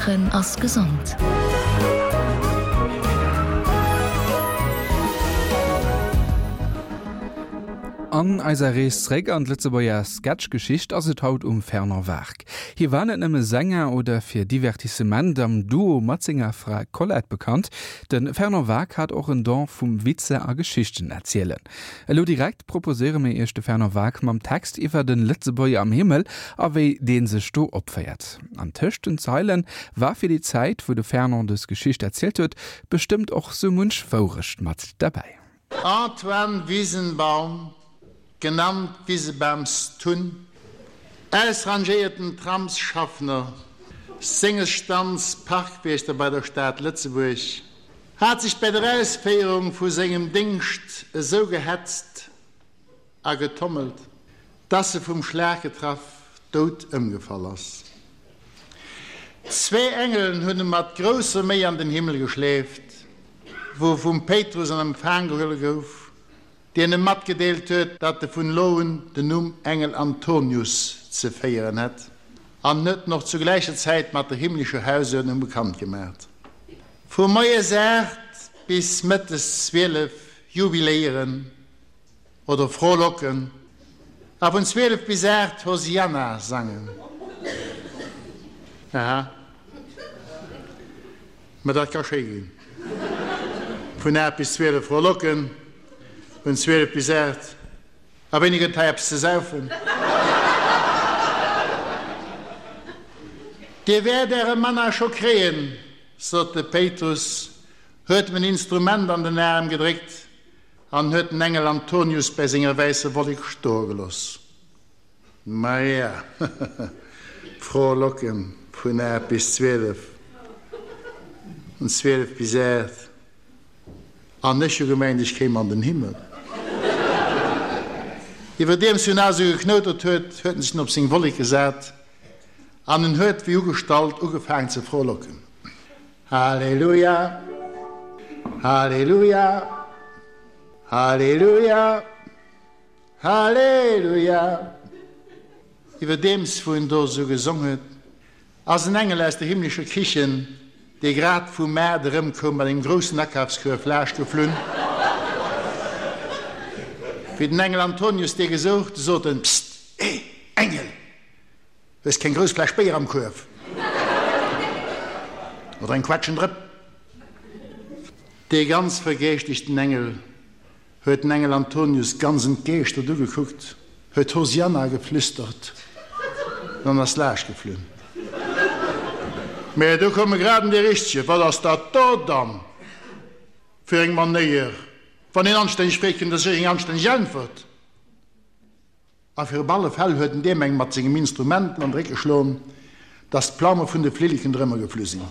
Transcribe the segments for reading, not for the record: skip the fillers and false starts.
Laachen ass gesond. An eiser Rees zréck an d'Lëtzebuerger Sketchgeschicht ass et haut um Fernand Wark. Hie war net nëmme Sänger oder fir Divertissement am Duo mat senger Fra Colette bekannt, de Fernand Wark hat och en Don vum Witzer a Geschichten erzielen. Elo direkt proposéiere mir iech de Fernand Waack mam Text iwwer den Lëtzebuerger am Himmel a wéi deen sech do opféiert. An tëscht den Zeilen war fir déi Zäit, wou de Fernand dës Geschicht erzielt huet, bestëmmt och sou munch Wourecht mat derbäi. Antoine Wiesenbaum, genannt Wisebaums Tunn, ausrangéierten Tramsschaffner, senges Stands Parkwiechter bei der Stad Lëtzebuerg, Hat sech bei der Ausféierung vu sengem Déngscht esou gehetzt a getommelt, dass e vum Schlag getraff dout ëmgefall ass. Zwee Engelen hunn e mat grousser Méi an den Himmel geschleeft, wou e vum Péitrus an Empfang gehuele gouf. deen em matgedeelt huet, datt e vun elo un den Numm Engel Antonius ze féieren hätt, an huet en och zu gläicher Zäit mat der himmlescher Hausuerdnung bekannt gemaacht. Vu moies 8 bis mëttes 12 jubiléieren oder frohlocken a vun 12 bis 8 Hosianna sangen. Aha. Mä dat ka schéi ginn. Vun 8 bis 12 frohlocken, vun 12 bis 8. A wéini gëtt hei eppes ze saufen? Dir wäert äre Manna scho kréien, sot de Péitrus, huet em en Instrument an den Aarm gedréckt an huet den Engel Antonius bäi senger wäisser Wollek stoe geloss. Maja, frohlocken vun 8 bis 12, vun 12 bis 8, an ech hu gemengt, ech kéim an den Himmel. Iwwerdeems wou en esou geknoutert huet, huet en sech op seng Wollek gesat an en huet wéi ugestallt ugefaangen ze frohlocken, Halleluja, Halleluja, Halleluja! Halleluja! Iwwerdeems wou en do esou gesong huet, ass en Engel aus der himmlescher Kichen, dee grad vum Maart erëmkoum, mat engem groussen Akafskuerf laaschtgeflunn. Wéi den Engel Antonius dee gesouch, du sot en, Psst, eh, Engel, hues keng grouss Fläsch Béier am Kuerf? Oder eng Quetschendrëpp? Dee ganz vergeeschtegten Engel Huet den Engel Antonius ganz entgeeschtert ugekuckt, huet Hosianna geflüstert an ass laascht geflunn. Mä do koum e grad en dee Richtege, Wat ass dat do dann fir eng Manéier? Wann een anstänneg freet, kritt een da sécher eng anstänneg Äntwert. A fir op alle Fäll huet en deem eng mat sengem Instrument an de Réck geschloen, dass d'Plaume vun de Flilleken drëmmer geflu sinn.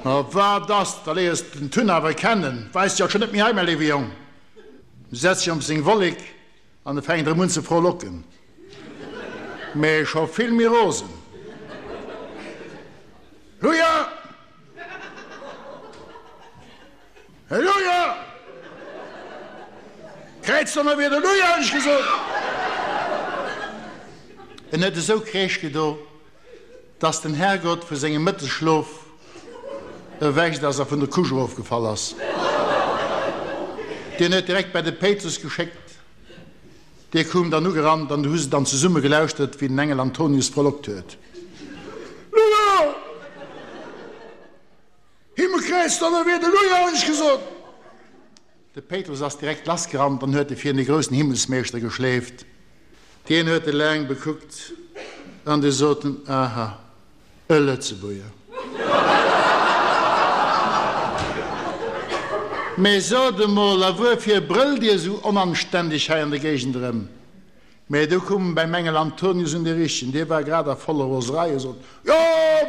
A wat ass, da léiers de den Tun awer kennen, weist sech alt schonn net méi hei, mäi léiwe Jong. Du setz dech op seng Wollek an e fänkt erëm un ze frohlocken, mä scho vill méi rosen. Luja! Halleluja! Kräiz Donnerwieder, Luja, hunn ech gesot! En huet esou Kräisch gedo, dass den Herrgott vu sengem Mëttesschlof erwächt ass a vun der Couche erofgefall ass. Dien huet direkt bei de Péitrus geschéckt. Dee koum dann ugerannt an du hu se dann zesumme gelauschtert, wéi den Engel Antonius frohlockt huet, Luja! Himmelkräiz, Donnerwieder, Luja, hunn ech gesot! De Péitrus ass direkt lassgerannt an huet e virun de groussen Himmelsmeeschter geschleeft. Dien huet e laang bekuckt an du sot en, Aha, e Lëtzebuerger. Mee sot emol, a wuerfir brëllt Dir esou onanständeg hei an der Géigend erëm? Mä du koum beim Engel Antonius un dee Richtegen, dee war grad a voller Roserei a sot, Jo,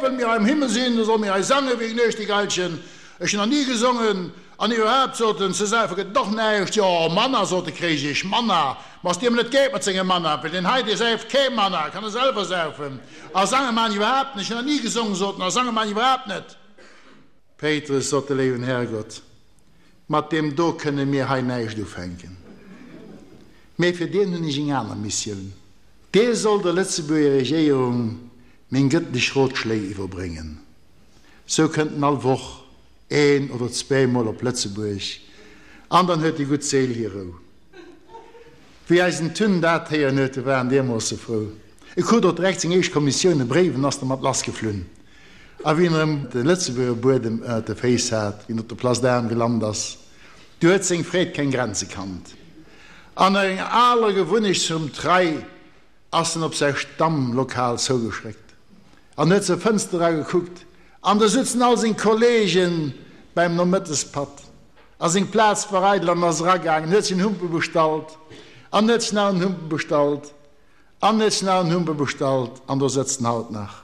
wëll mir hei am Himmel sinn, da solle mir hei sange wéi Nuechtigailchen. Ech hunn nach ni gesongen. An iwwerhaapt, sot en, ze saufe gëtt et och näischt. Jo, Manna, sot de Kréijich, Manna! Ma ass deem net geet mat sengem Manna, well deen hei, dee säift kee Manna, kann e selwer saufen. A sange man ech iwwerhaapt net. Ech hunn nach ni gesongen, sot en, a sange man ech iwwerhaapt net. Péitrus, sot de léiwen Herrgott, mat deem do kënne mir hei näischt ufänken. Mee fir deen hunn ech eng aner Missioun. Dee soll der Lëtzebuerger Regéierung. Meng gëttlech Rotschléi iwwerbréngen. Sou kënnt en all Woch een oder zweemol op Lëtzebuerg an dann huet déi gutt Séil hir Rou. Wéi eisen Tun dat héieren huet, du war en deermoosse frou. E krut och direkt seng éischt Kommissioun, e Bréif, en ass dermat lassgeflunn. A wéi en erëm de Lëtzebuerger Buedem ënnert de Féiss hat, wéi en op der Place d'Armes gelant ass, du huet seng Freed keng Grenze kannt. An no enger aler Gewunnecht zum Trei ass en op säi Stammlokal zougeschréckt an huet zur Fënster era gekuckt, an do sutzen all seng Kollegen beim Nomëttespatt, a seng Plaz war eidel an ass eragaangen, huet sech en Humpe bestallt an huet sech nach en Humpe bestallt an huet sech nach en Humpe bestallt an do sëtzt en haut nach.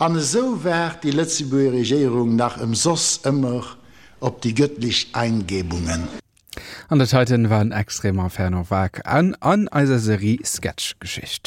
An esou waart déi Lëtzebuerger Regéierung nach ëmsoss ëmmer op déi gëttlech Eingebungen. An dat heiten war en extrem Inferno Waark an an eiser Serie Sketchgeschicht.